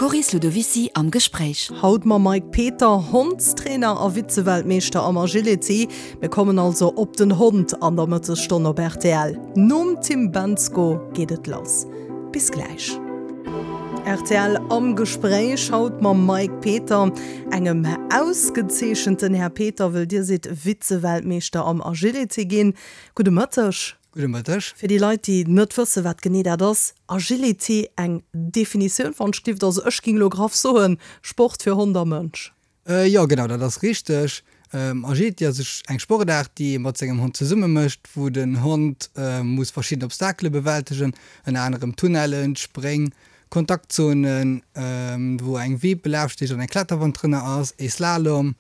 D'Coris Ludovicy am Gespréich. Haut mam Mike Peter, Hondstrainer a Vize-Weltmeeschter am Agility. Mir kommen also op den Hond an der Mëttesstonn op rtl. Nom Tim Bendzko geet et lass. Bis gläich. Rtl am Gespréich, haut mam Mike Peter, engem ausgezeechenten Här Peter, wëll Dir sidd Vize-Weltmeeschter am Agility ginn. Gudde Mëtteg. Gudde Mëtteg. Fir déi Leit, déi net wëssen, wat genee dat ass, Agility, eng Definitioun wann ech dierft, also ech ging elo graff soen, Sport fir Hond a Mënsch. Jo, genau, dat ass richteg. Agility ass eng Sportaart, déi ee mat sengem Hond zesumme mécht, wou den Hond muss verschidden Obstakele bewältegen, ënner anerem Tunnellen, Spréng, Kontaktzonen, wou eng Wipp, e Lafsteg an eng Kletterwand drënner ass, ee Slalom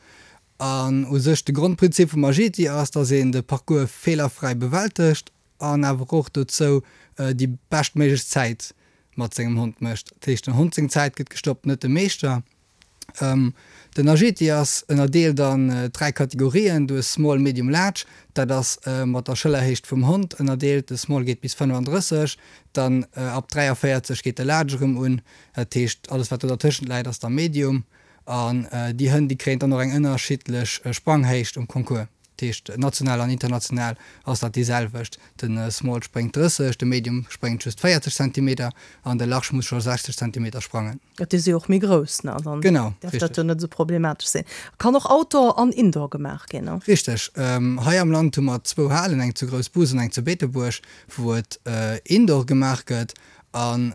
An u sech de Grondprinzip vum Agility ass, dass een de Parcours feelerfräi bewältegt an awer och dozou déi beschtméiglech Zäit mat sengem Hond mécht. Dat heescht, den Hond seng Zäit gëtt gestoppt, net de Meeschter. Den Agility ass ënnerdeelt an 3 Kategorien, du hues Small, Medium, Large. Dat ass mat der Schëllerhéicht vum Hond ënnerdeelt. De Small geet bis 35, dann ab 43 geet de Large erëm un. Dat heescht, alles wat do dertëschent läit ass da Medium. An déi Hënn, déi kréien dann och eng ënnerschiddlech Spranghéicht um Concours. Dat heescht, national an international ass dat déi selwecht. De Small spréngt 30, de Medium spréngt just 40 Zentimeter an de Large muss scho 60 Zentimeter sprangen. Et si jo och méi grouss, ne? Dann Genau, däerf dat jo net esou problematesch sinn. Kann och Outdoor an Indoor gemaach ginn, ne? Richteg. Hei am Land hu mer zwou Halen, eng zu Groussbus an eng zu Beetebuerg, wou et Indoor gemaach gëtt. An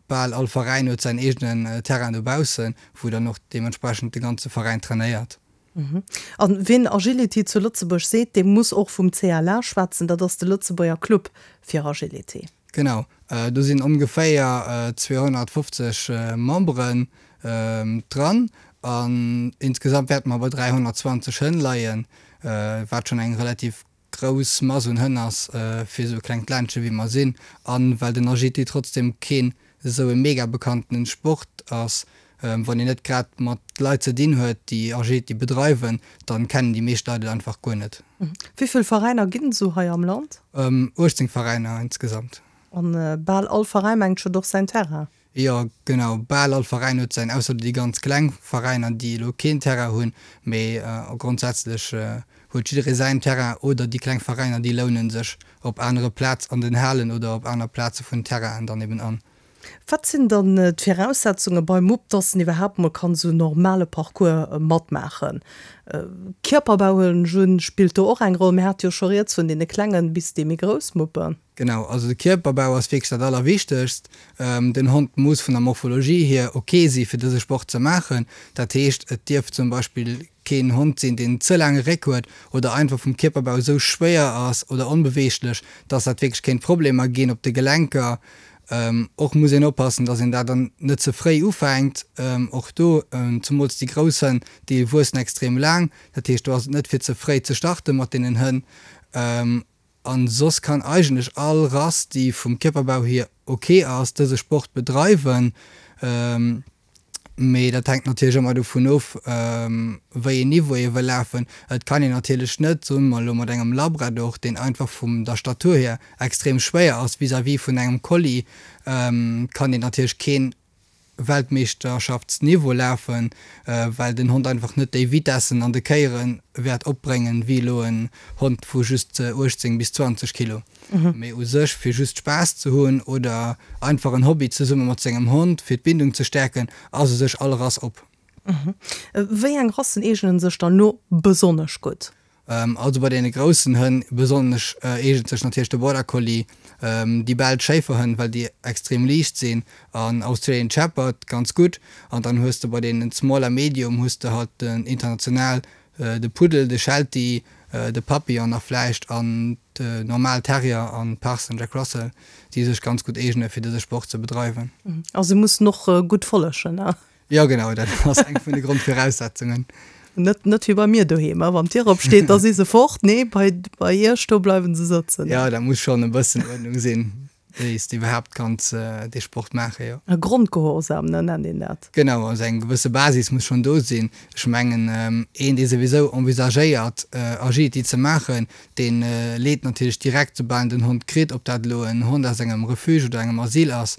bal all Veräin huet säin eegenen Terrain dobaussen, wou dann och deementsprechend de ganze Veräin trainéiert. An wien Agility zu Lëtzebuerg seet, dee muss och vum CLA schwätzen, dat ass de Lëtzebuerger Club fir Agility. Genau, do sinn ongeféier 250 Memberen dran an insgesamt wäerte mer bei 320 Hënn leien, wat schonn eng relativ grouss Mass un Hënn ass fir esou e klengt Ländche wéi mer sinn, an well den Agility trotzdem keen esou e mega bekanntenen Sport ass, wann een net grad mat Leit ze dinn huet déi Agility bedreiwen, dann kennen déi meescht Leit et einfach guer net. Wéi vill Veräiner ginn et esou hei am Land? 18 Veräiner insgesamt. An bal all Veräin mengt huet och säin Terrain? Jo genau, bal all Veräin huet säin, ausser déi ganz kleng Veräiner déi elo keen Terrain hunn, mee grondsätzlech huet jidderee säin Terrain oder déi kleng Veräiner déi lounen sech op anere Plaz an den Halen oder op aner Plaze vun Terrainen dann eben an. Wat sinn dann d'Viraussetzunge beim Mupp, dass en iwwerhaapt mol kann esou en normale Parcours matmaachen? Kierperbau huelen ech un, spillt do och eng Roll. Mir hate jo scho rieds vun deene klengen bis déi méi grouss Muppen. Genau, also de Kierperbau ass wierklech dat Allerwichtegst. Den Hond muss vun der Morphologie hier ok si fir dëse Sport ze maachen. Dat heescht, et dierf zum Beispill keen Hond sinn, deen ze laange Réck huet oder einfach vum Kierperbau esou schwéier ass oder onbeweeglech, dass dat wierklech kéint Problemer ginn op de Gelenker. Och muss een oppassen, dass een dat dann net ze fréi ufänkt. Och do, zemools déi grouss Hënn, déi wuessen extrem laang. Dat heescht, do ass et net fir ze fréi ze starte mat deenen Hënn. An soss kann eigentlech all Rass, déi vum Kierperbau hier ok ass, dëse Sport bedreiwen. Mee dat hänkt natierlech ëmmer dovun of, wéi een Niveau ee wëll lafen. Et kann een natierlech net, soe mer elo, mat engem Labrador, deen einfach vum der Statur hier extrem schwéier ass vis-à-vis vun engem Collie, kann een natierlech keen Weltmeeschterschaftsniveau lafen, well den Hond einfach net déi Vitessen an de Kéiere wäert opbréngen, wéi elo en Hond vu just 18 bis 20 Kilo. Mee u sech, fir just Spaass ze hunn oder einfach en Hobby zesumme mat sengem Hond, fir d'Bindung ze stäerken, ass u sech all Rass op. Wéi eng Rassen eegnen sech dann elo besonnesch gutt? Also bei deene groussen Hënn besonnesch eegent sech natierlech de Border Collie, déi belsch Schéiferhënn, well déi extrem liicht sinn, an Australian Shepherd ganz gutt. An dann hues de bei deenen Small a Medium hues de halt den international, de Puddel, de Sheltie, de Papillon nach vläicht an de normal Terrier an Parson Jack Russell, déi sech ganz gutt eegene fir dëse Sport ze bedreiwen. A se mussen och gutt follegen, ne? Jo genau, dat ass eng vun de Grondviraussetzungen. Net, net wéi bei mir doheem, wann d'Dier opsteet, da si se fort. Nee, bei, bei iech do bleiwen se sëtzen. Jo, da muss schonn e bëssen Uerdnung sinn. Wéi s de iwwerhaapt kanns dee Sport maachen, jo. E Grondgehorsam, ne, nennt een dat. Genau, also eng gewësse Basis muss schonn do sinn. Ech mengen, een, dee souwisou envisagéiert, Agility ze maachen, dee leet natierlech direkt, soubal en den Hond kritt, ob dat elo en Hond aus engem Refuge oder engem Asyl ass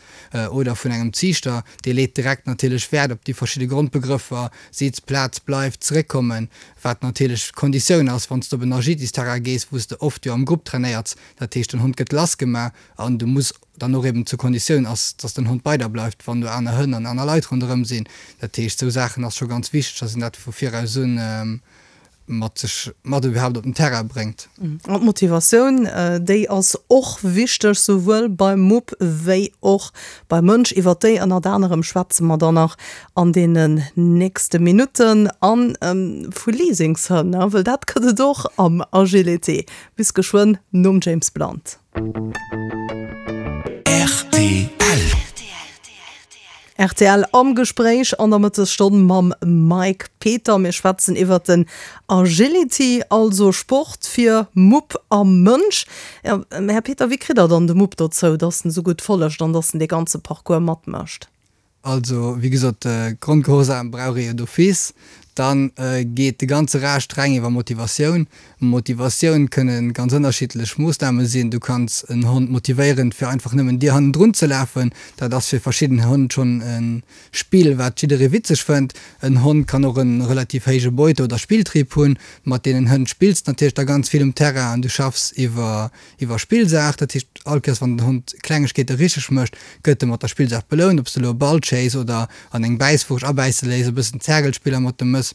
oder vun engem Ziichter, dee leet direkt natierlech Wäert op déi verschidde Grondbegrëffer, Sitz, Plaz, Bleif, Zeréckkommen, wat natierlech d'Konditioun ass, wann s de op en Agilitysterrain gees, wou s de oft jo am Grupp trainéiers. Dat heescht, den Hond gëtt lassgemaach an du muss dann och eben zur Konditioun ass, dass den Hond bei der bleift, wann do aner Hënn an aner Leit ronderëm sinn. Dat heescht, esou Saachen ass scho ganz wichteg, dass een dat vu viraus un mat sech mat iwwerhaapt op den Terrain bréngt. An d'Motivatioun, déi ass och wichteg, souwuel beim Mupp wéi och beim Mënsch. Iwwert déi ënnert anerem schwätze mer dann nach an deenen nächste Minutten. A vu Leasingshënn, wëll dat gëtt et och am Agility. Bis geschwënn nom James Blunt. Rtl. Rtl am Gespréich an der Mëttesstonn mam Mike Peter. Mir schwätzen iwwert den Agility, also Sport fir Mupp a Mënsch. Här Peter, wéi kritt der dann de Mupp dozou, dass en esou gutt follegt an dass en dee ganze Parcours matmécht? Also, wéi gesot, Grondgehorsam brauch ee jo d'office. Da geet de ganze Rescht reng iwwer Motivatioun. Motivatioun kënne ganz ënnerschiddlech Moossname sinn. Du kanns en Hond motivéieren, fir einfach nëmmen dir hannendrun ze lafen. Dat ass fir verschidden Hënn schonn e Spill, wat jidderee witzeg fënnt. En Hond kann och e relativ héije Beute oder Spilltrieb hunn. Mat deenen Hënn spills de natierlech da ganz vill um Terrain an du schaffs iwwer Iwwer Spillsaach, dat heescht all Kéiers wann den Hond Klengegkeete richteg mécht, gëtt e mat der Spillsaach belount, ob s de elo e Ball chase oder an eng Bäisswurscht abäisse léiss, e bëssen Zergelspiller mat dem mëss,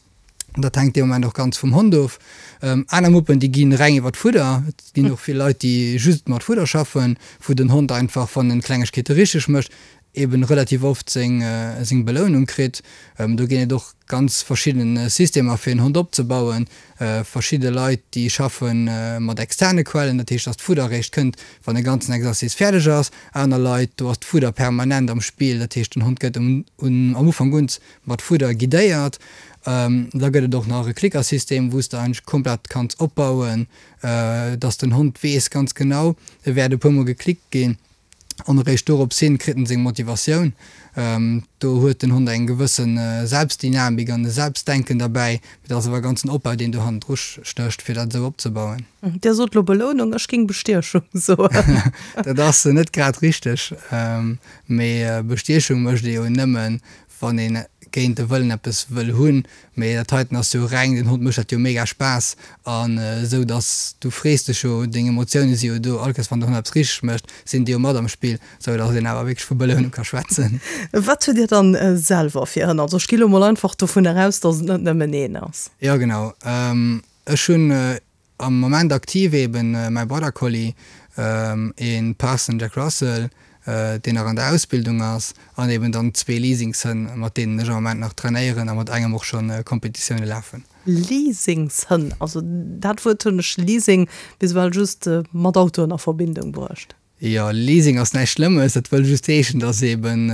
dat hänkt dee Moment och ganz vum Hond of. Aner Muppen, déi gi reng iwwer d'Fudder, et ginn och vill Leit, déi just mat Fudder schaffen, wou den Hond einfach, wann en Klengegkeete richteg mécht, eben relativ oft seng seng Belounung kritt. Do ginn et och ganz verschidden Systemer fir en Hond opzebauen. Verschidde Leit déi schaffe mat externe Quellen, dat heescht dass d'Fudder eréischt kënnt wann e ganzen Exercice fäerdeg ass. Aner Leit, do ass d'Fudder permanent am Spill, dat heescht den Hond gëtt um am Ufank un mat Fudder guidéiert. Da gëtt et och nach e Klickersystem wou s de eigentlech komplett kanns opbauen, dass den Hond weess ganz genau e wäert e puer mol geklickt ginn. An eréischt dorops hin kritt en seng Motivatioun. Do huet den Hond eng gewësse Selbstdynamik an e Selbstdenken derbäi. Mee dat ass awer e ganzen Opbau, deen do hannendru stécht, fir dat esou opzebauen. Dir sot elo Belounung, ech géing Bestiechung soen. Dat ass net grad richteg. Mee Bestiechung mécht ee jo nëmmen, wann een géint de Wëllen eppes wëll hunn, mee dat heiten ass jo reng, den Hond mécht dat jo mega Spaass an esou dass du frees dech jo, deng Emotioune si jo do, all Kéiers wann den Hond eppes richteg mécht, sinn déi jo mat am Spill, esou dass een awer wierklech vu Belounung ka schwätzen. Wat hutt Dir dann selwer fir Hënn? Also ech gi lo mol einfach dovunner aus, dass et net nëmmen een ass. Jo genau, ech hunn Am Moment aktiv eben mäi Border Collie, een Parson Jack Russell, deen nach an der Ausbildung ass, an eben dann zwee Leasingshënn, mat deenen ech am Moment nach trainéieren a mat engem och schonn Kompetitioune lafen. Leasingshënn, also dat Wuert hunn ech, Leasing, bis ewell just mat Autoen a Verbindung bruecht. Jo, Leasing ass näischt Schlëmmes, dat wëll just heeschen, dass eben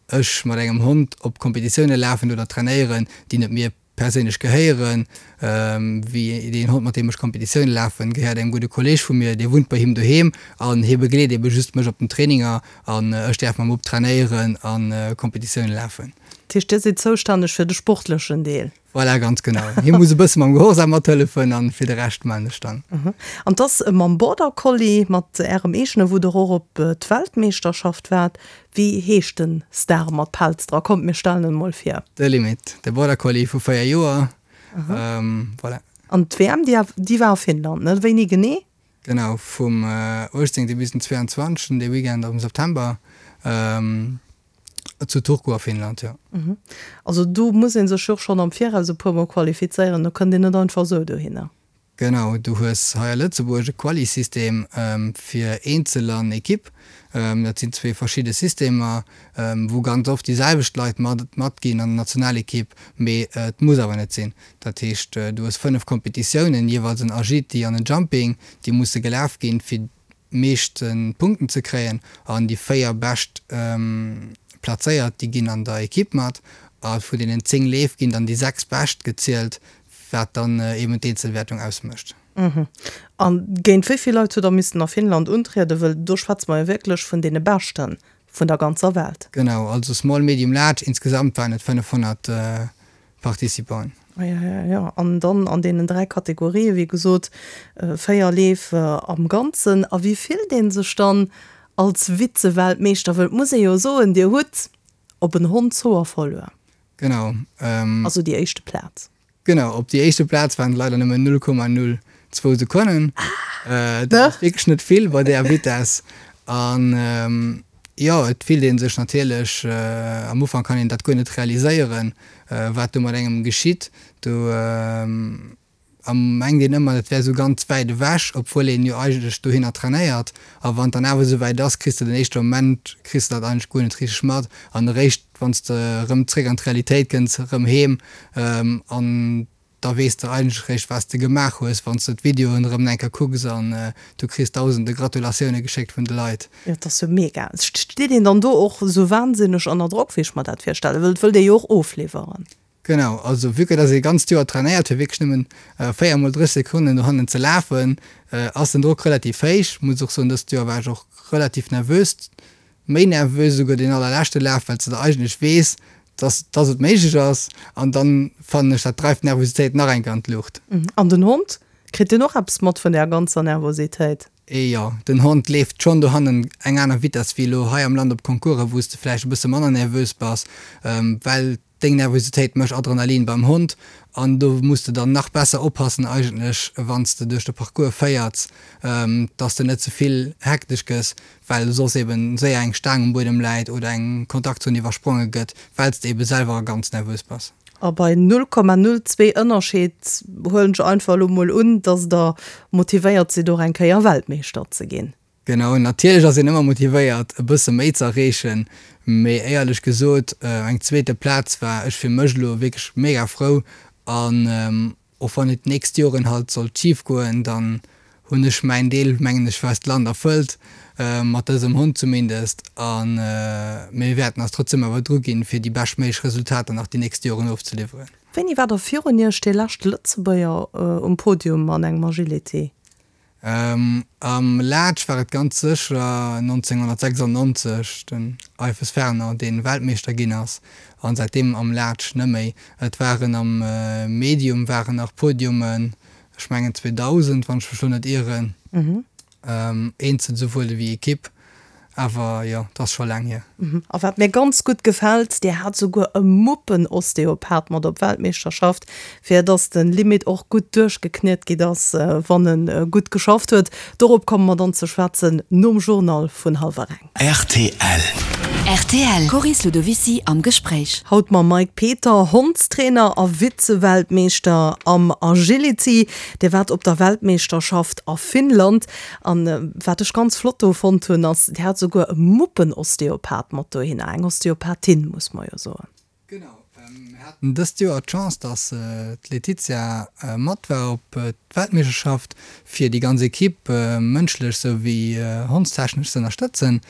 ech mat engem Hond op Kompetitioune lafen oder trainéieren, déi net mir perséinlech gehéieren, wéi deen Hond mat deem ech Kompetitioune lafen, gehéiert engem gudde Kolleeg vu mir, dee wunnt bei him doheem an hie begleet ebe just mech op den Traininger an ech däerf mam Mupp trainéieren a Kompetitioune lafen. Dat heescht, Dir sidd zoustänneg fir de sportlechen Deel? Voilà, ganz genau. Hie muss e bësse mam Gehorsam mathëllefen an fir de Rescht maan ech dann. An 't ass mam Border Collie, mat Ärem eegene, wou Der och op d'Weltmeeschterschaft waart. Wéi heescht den Star mat Pelz dra? Kommt mir stellen en mol vir. De Limit, de Border Collie vu 4 Joer, voilà. An d'WM déi war a Finnland, ne? Wéini genee? Genau, vum 18 bis den 22, dee Weekend am September, zu Turku a Finnland, jo. Also do muss ee sech jo och schonn am Viraus e puer mol qualifizéieren, do kënnt een net einfach esou dohinner. Genau, du hues hei a Lëtzebuerg e Quali-System fir Eenzel an Ekipp. Dat sinn zwee verschidde Systemer, wou ganz oft déi selwecht Leit matginn an der Nationalekipp, mee et muss awer net sinn. Dat heescht, du hues 5 Kompetitiounen, jeeweils en Agility an en Jumping, déi musse gelaf ginn, fir meeschte Punkten ze kréien an déi 4 bescht plazéiert, déi ginn an der Ekipp mat a vun deenen 10 Leef ginn dann déi 6 bescht gezielt, wat dann eben d'Eenzelwäertung ausmécht. A géint wéi vill Leit hutt Der missen a Finnland untrieden? Wëll do schwätze mer jo wierklech vun deene Beschte vun der ganzer Welt. Genau, also Small, Medium, Large, insgesamt waren et 500 Participanten. Ah ja, ja, ja. An dann an deenen 3 Kategorien, wéi gesot, 4 Leef am Ganzen. A wéi fillt ee sech dann als Vize-Weltmeeschter? Wëll et muss ee jo soen, Dir hutt op en Hondshoer verluer. Genau. Also déi éischte Plaz. Genau, op déi éischte Plaz waren et leider nëmmen 0,02 Sekonnen. Dat ass wierklech net vill bei där Vitess. An jo, et fillt ee sech natierlech, am Ufank kann een dat guer net realiséieren, wat do mat engem geschitt. Do mengt een ëmmer, dat wär esou ganz wäit ewech, obwuel een jo eigentlech dohinner trainéiert. A wann et dann awer esou wäit ass, kriss de den éischte Moment kriss de dat eigentlech guer net richteg mat. An eréischt wann s de erëm zréck an d'Realitéit kënns, erëm heem an da weess de eigentlech eréischt wat s de gemaach hues, wann s de d'Videoen erëm eng Kéier kucks an du kriss dausende Gratulatioune geschéckt vun de Leit. Jo, et ass jo mega. Steet een dann do och esou wahnsinneg ënner Drock, wéi ech mer dat virstellen? Well et wëllt ee jo och ofliwweren. Genau, also vue que dass ee ganzt Joer trainéiert fir wierklech nëmmen 4 mol 30 Sekonnen dohannen ze lafen, ass den Drock relativ héich. Muss och soen, dëst Joer war ech och relativ nervös, méi nervös esouguer deen allerleschte Laf, well s de da eigentlech weess, dass dass et méiglech ass an dann fannen ech dat dreift d'Nervositéit nach eng Kéier an d'Luucht. An den Hond, kritt deen och eppes mat vun där ganzer Nervositéit? Jo, den Hond leeft schonn dohannen eng aner Vitess wéi elo hei am Land op Concoursen, wou s de vläicht e bësse manner nervös bass, well Deng Nervositéit mécht Adrenalin beim Hond an do muss de dann nach besser oppassen eigentlech wanns de duerch de Parcours féierts, dass de net ze vill hektesch gëss, well soss eben séier eng Staang um Buedem läit oder eng Kontaktzon iwwerspronge gëtt, wells de eben selwer ganz nervös bass. A bei 0,02 Ënnerscheed huelen ech einfach elo mol un, dass der motivéiert sidd och eng Kéier Weltmeeschter ze ginn. Genau, natierlech ass een ëmmer motivéiert e bësse méi ze erreechen, mee éierlech gesot eng zweete Plaz war ech fir mech elo wierklech mega frou an och wann et d'nächst Joren halt sollt schif goen, dann hunn ech mäin Deel mengen ech fir eist Land erfëllt, mat dësem Hond zumindest a mir wäerten eis trotzdem awer dru ginn fir déi beschtméiglech Resultater nach déi nächst Joren ofzeliwweren. Wéini war da virun Iech dee leschte Lëtzebuerger um Podium an engem Agility? Am Large war et ganz sécher 1996 den Eifes Fernand, dee Weltmeeschter ginn ass, an säitdeem am Large neméi. Et waren am Medium waren nach Podiumen, ech mengen 2000, wann ech mech lo net ieren, eenzel souwuel ewéi Ekipp. Awer jo, et ass scho laang hier. A wat mir ganz gutt gefält, Dir hat souguer e Muppenosteopath mat op Weltmeeschterschaft, fir dass de Limit och gutt duerchgekniet gitt ass, wann e gutt geschafft huet. Dorop komme mer dann ze schwätzen nom Journal vun hallwer eng. Rtl. Rtl, Coris Ludovicy am Gespréich. Haut mam Mike Peter, Hondstrainer a Vize-Weltmeeschter am Agility. Dir waart op der Weltmeeschterschaft a Finnland. An wat ech ganz flott do fonnt hunn, ass, Dir hat souguer e Muppenosteopath mat dohinner, eng Osteopathin, muss mer jo soen. Genau, mir haten dëst Joer d'Chance, dass d'Laetitia mat war op d'Weltmeeschterschaft, fir déi ganz Equipe mënschlech souwéi hondstechnesch ze ënnerstëtzen.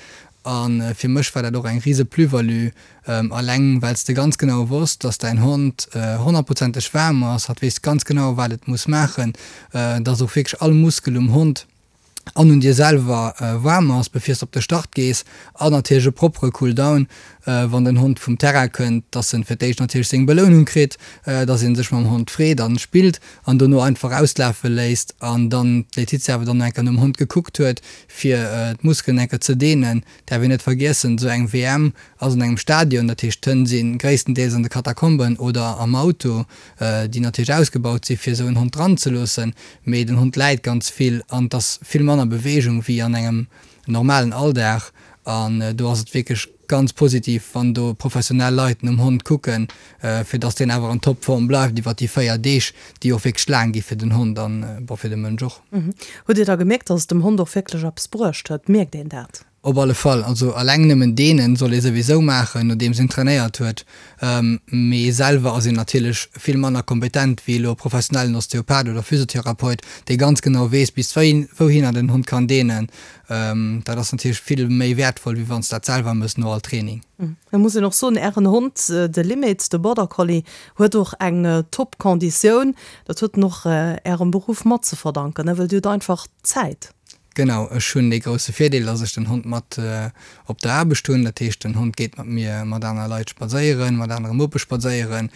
A fir mech war dat och eng rise Plus-value, alleng well s de ganz genau wosst, dass däin Hond honnertprozenteg waarm ass, hatt weess ganz genau, wat et muss maachen, dass och wierklech all Muskel um Hond an un dir selwer waarm ass, bevir s de op de Start gees. An natierlech e proppere Cool-down, wann den Hond vum Terrain kënnt, dass en fir d'éischt natierlech seng Belounung kritt, dass ee sech mam Hond freet an spillt an dono einfach auslafe léisst an dann d'Laetitia awer dann nach eng Kéier nom Hond gekuckt huet, fir d'Muskelen eng Kéier ze deenen. Däerf een net vergiessen, esou eng WM ass an engem Stadion, dat heescht d'Hënn si gréisstendeels an de Katakomben oder am Auto, déi natierlech ausgebaut si fir esou en Hond dran ze loossen, mee den Hond läit ganz vill an et ass vill manner Beweegung wéi an engem normalen Alldag an do ass et wierklech ganz positiv, wann do professionell Leit nom Hond kucken, fir dass deen awer an Topform bleift iwwer déi 4 Deeg, déi och wierklech laang gi fir den Hond an, bon, fir de Mënsch och. Hutt Dir da gemierkt, dass et dem Hond och wierklech eppes bruecht huet? Mierkt een dat? Op alle Fall, also alleng nëmmen deenen soll ee souwisou maachen, nodeems een trainéiert huet. Mee selwer ass een natierlech vill manner kompetent wéi elo e professionellen Osteopath oder Physiotherapeut, dee ganz genau weess bis wouhinner den Hond kann deenen. Dat ass natierlech vill méi wäertvoll, wéi wann s dat selwer mëss no all Training. Et muss een och soen, Ären Hond, de Limit, de Border Collie, huet och eng top Konditioun. Dat huet en och Ärem Beruff mat ze verdanken, ne, well Dir hutt einfach Zäit. Genau, ech hunn dee grousse Virdeel, dass ech den Hond mat op der Aarbecht hunn. Dat heescht, den Hond geet mat mir mat aner Leit spadséieren, mat anere Muppe spadséieren.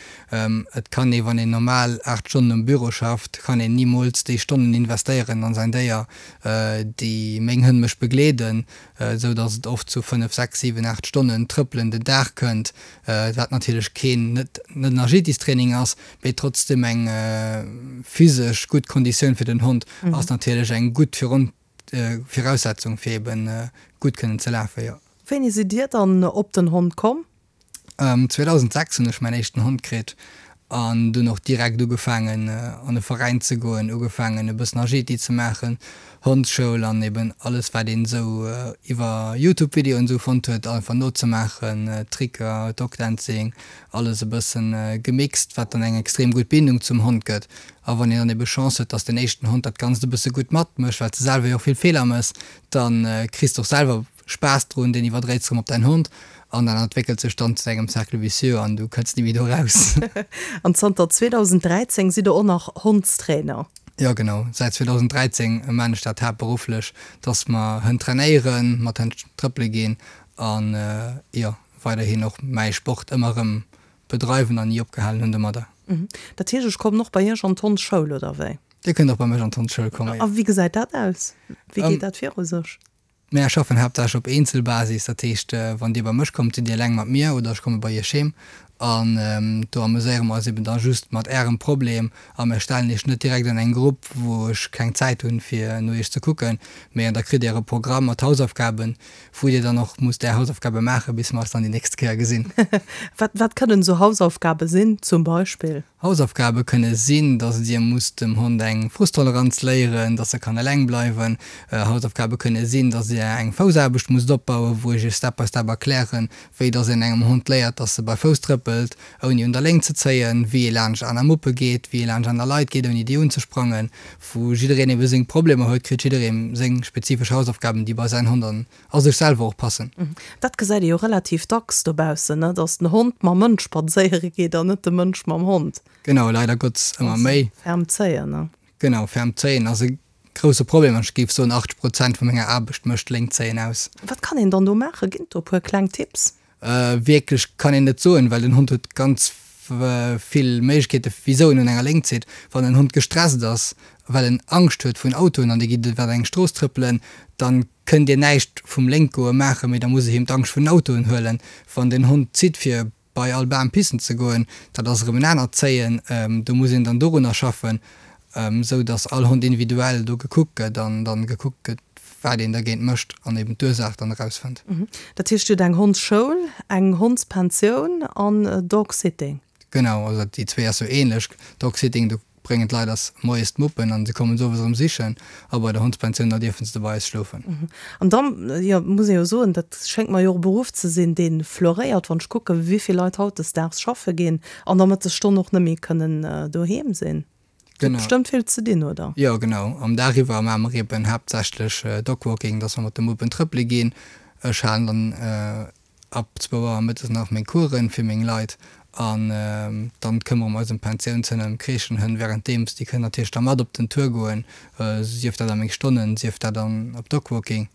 Et kann ee, wann een normal 8 Stonnen um Büro schafft, kann een nimools déi Stonnen investéieren an säin Déier, déi meng Hënn mech begleeden, esou dass et oft zu 5, 6, 7, 8 Stonnen Trëppelen den Dag kënnt, wat natierlech keen, net en Agilitystraining ass, mee trotzdem eng physesch gutt Konditioun fir den Hond ass natierlech eng gutt Viraussetzung fir eben gutt kënnen ze lafen, jo. Wéini sidd Dir dann op den Hond komm? 2006 hunn ech mäin éischten Hond kritt an dunn och direkt ugefaangen an e Veräin ze goen, ugefaangen e bëssen Agility ze maachen, Hondsschoul an eben alles wat een esou iwwer Youtube Videoen esou fonnt huet einfach nozemaachen, Tricker, Dogdancing, alles e bëssen gemixt, wat dann eng extrem gutt Bindung zum Hond gëtt. A wann een dann ebe Chance huet, dass den éischten Hond dat Ganzt e bësse gutt matmécht, well s de selwer jo och vill Feeler mëss, dann kriss de och selwer Spaass drun, deen iwwerdréits erëm op däin Hond an dat entwéckelt sech dann zu engem Cercle vicieux an du kënns ni méi do raus. An zanter 2013 sidd der och nach Hondstrainer? Jo genau, säit 2013 maan ech dat haaptberufflech, dass mer Hënn trainéieren, mat Hënn trëppele ginn an jo. weiderhin och mäi Sport ëmmer erëm bedreiwen an ni opgehalen hunn domadder. Dat heescht, ech kommen och bei Iech an d'Hondsschoul, oder wéi? Dir kënnt och bei mech an d'Hondsschoul kommen, jo. A wéi gesäit dat aus? Wéi geet dat viru sech? Mär schaffen haaptsächlech op Eenzelbasis, dat heescht, wann Dir bei mech kommt, sidd Dir eleng mat mir oder ech komme bei Iech heem an do ameséiere mer eis eben da just mat Ärem Problem a mär stellen Iech net direkt an eng Grupp, wou ech keng Zäit hunn, fir no Iech ze kucken, mee da kritt Dir e Programm mat Hausaufgaben, Wou dir dann och musst är Hausaufgabe maachen, bis mer eis dann déi nächst Kéier gesinn. Wat, wat kënnen esou Hausaufgabe sinn, zum Beispill? Hausaufgabe kënne sinn, dass dir musst dem Hond eng Frusttoleranz léieren, dass e kann eleng bleiwen. Hausaufgabe kënne sinn, dass dir eng Foussaarbecht musst opbauen, wou ech iech Step by Step erklären, wéi dass een engem Hond léiert, dass e bei Fouss trëppelt, ouni un der Léng ze zéien, wéi ee laanscht aner Muppe geet, wéi ee laanscht aner Leit geet, ouni déi unzesprangen. Wou jiddereen ebe seng Problemer huet, kritt jidderee seng spezifesch Hausaufgaben, déi bei säin Hond an a sech selwer och passen. Dat gesäit ee jo relativ dacks dobaussen, ne, dass den Hond mam Mënsch spadséiere geet an net de Mënsch mam Hond. Genau, leider Gottes ëmmer méi. Ferm zéien, ne? Genau, ferm zéien ass e grousse Problem an ech géif soen, 80 Prozent vu menger Aarbecht mécht Léngt zéien aus. Wat kann een dann do maachen? Ginn et do e puer kleng Tipps? Wierklech kann een net soen, well den Hond huet ganz vill Méiglechkeete wisou en un enger Léngt zitt. Wann en Hond gestresst ass, well en Angscht huet vun Autoen an dir gitt iwwer eng Strooss trëppelen, dann kënnt dir näischt vum Lénkgoe maachen, mee da muss e him d'Angscht vun den Autoen huelen. Wann den Hond zitt fir bei all Bam pissen ze goen, dat ass erëm en anert Zéien, do muss een dann dorunner schaffen, esou datt all Hond individuell do gekuckt gëtt an dann gekuckt gëtt, wat een dergéint mécht an eben d'Ursaach dann erausfënnt. Dat heescht, Dir hutt eng Hondsschoul, eng Hondspensioun an Dogsitting? Genau, also déi zwee ass sou ähnlech. Dogsitting, do bréngen d'Leit eis moies d'Muppen an se kommen se owes erëm sichen a bei der Hondspensioun, da dierfen se bei eis schlofen. An dann, jo, muss ee jo soen, dat schéngt mer jo och e Beruff ze sinn, dee floréiert, wann ech kucken, wéi vill Leit hautdesdaags schaffe ginn an der Mëttesstonn och net méi kënnen doheem sinn. Genau. Bestëmmt vill ze dinn, oder? Jo, genau. Am Dag iwwer maache mer eben haaptsächlech Dogwalking, dass mer mat de Muppen trëppele ginn. Ech halen dann ab zwou Auer mëttes nach meng Coursen fir meng Leit an dann këmmere mer eis ëm d'Pensiounshënn an ëm d'Crèchenhënn währenddeems. Déi kënnen natierlech da mat op den Tour goen, sief dat a meng Stonnen, sief dat an op Dogwalking.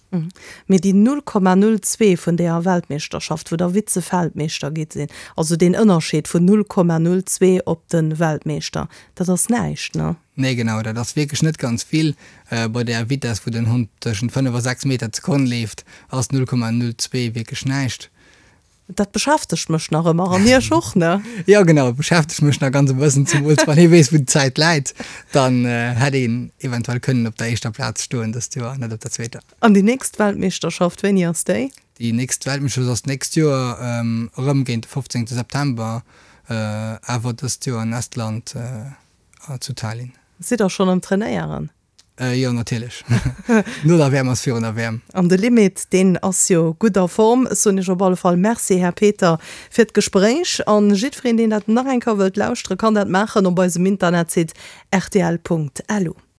Mee déi 0,02 vun deeër Weltmeeschterschaft, wou der Vize-Weltmeeschter gitt sinn, also deen Ënnerscheed vun 0,02 op de Weltmeeschter, dat ass näischt, ne? Nee, genau, dat ass wierklech net ganz vill. Bei där Vitess, wou den Hond tëschent 5 a 6 Meter d'Sekonn leeft, ass 0,02 wierklech näischt. Dat beschäftegt mech nach ëmmer, an Iech och, ne? Jo, genau, et beschäftegt mech nach ganz e bëssen, zemools wann ee weess, wou d'Zäit läit. Dann hätt een eventuell kënnen op der éischter Plaz stoen dëst Joer, net op der zweeter. An déi nächst Weltmeeschterschaft, wéini ass déi? Déi nächst Weltmeeschterschaft ass d'nächst Joer, erëm géint de 15 September, awer dëst Joer an Estland zu Tallinn. Sidd der schonn am Trainéieren? Jo, natierlech. No der WM ass virun der WM. An de Limit, deen ass jo gutt a Form. Ech soen Iech op alle Fall Merci, Här Peter, fir d'Gespréich. An jiddwereen, deen dat nach eng Kéier wëllt lauschteren, kann dat maachen op eisem Internetsite rtl.lu.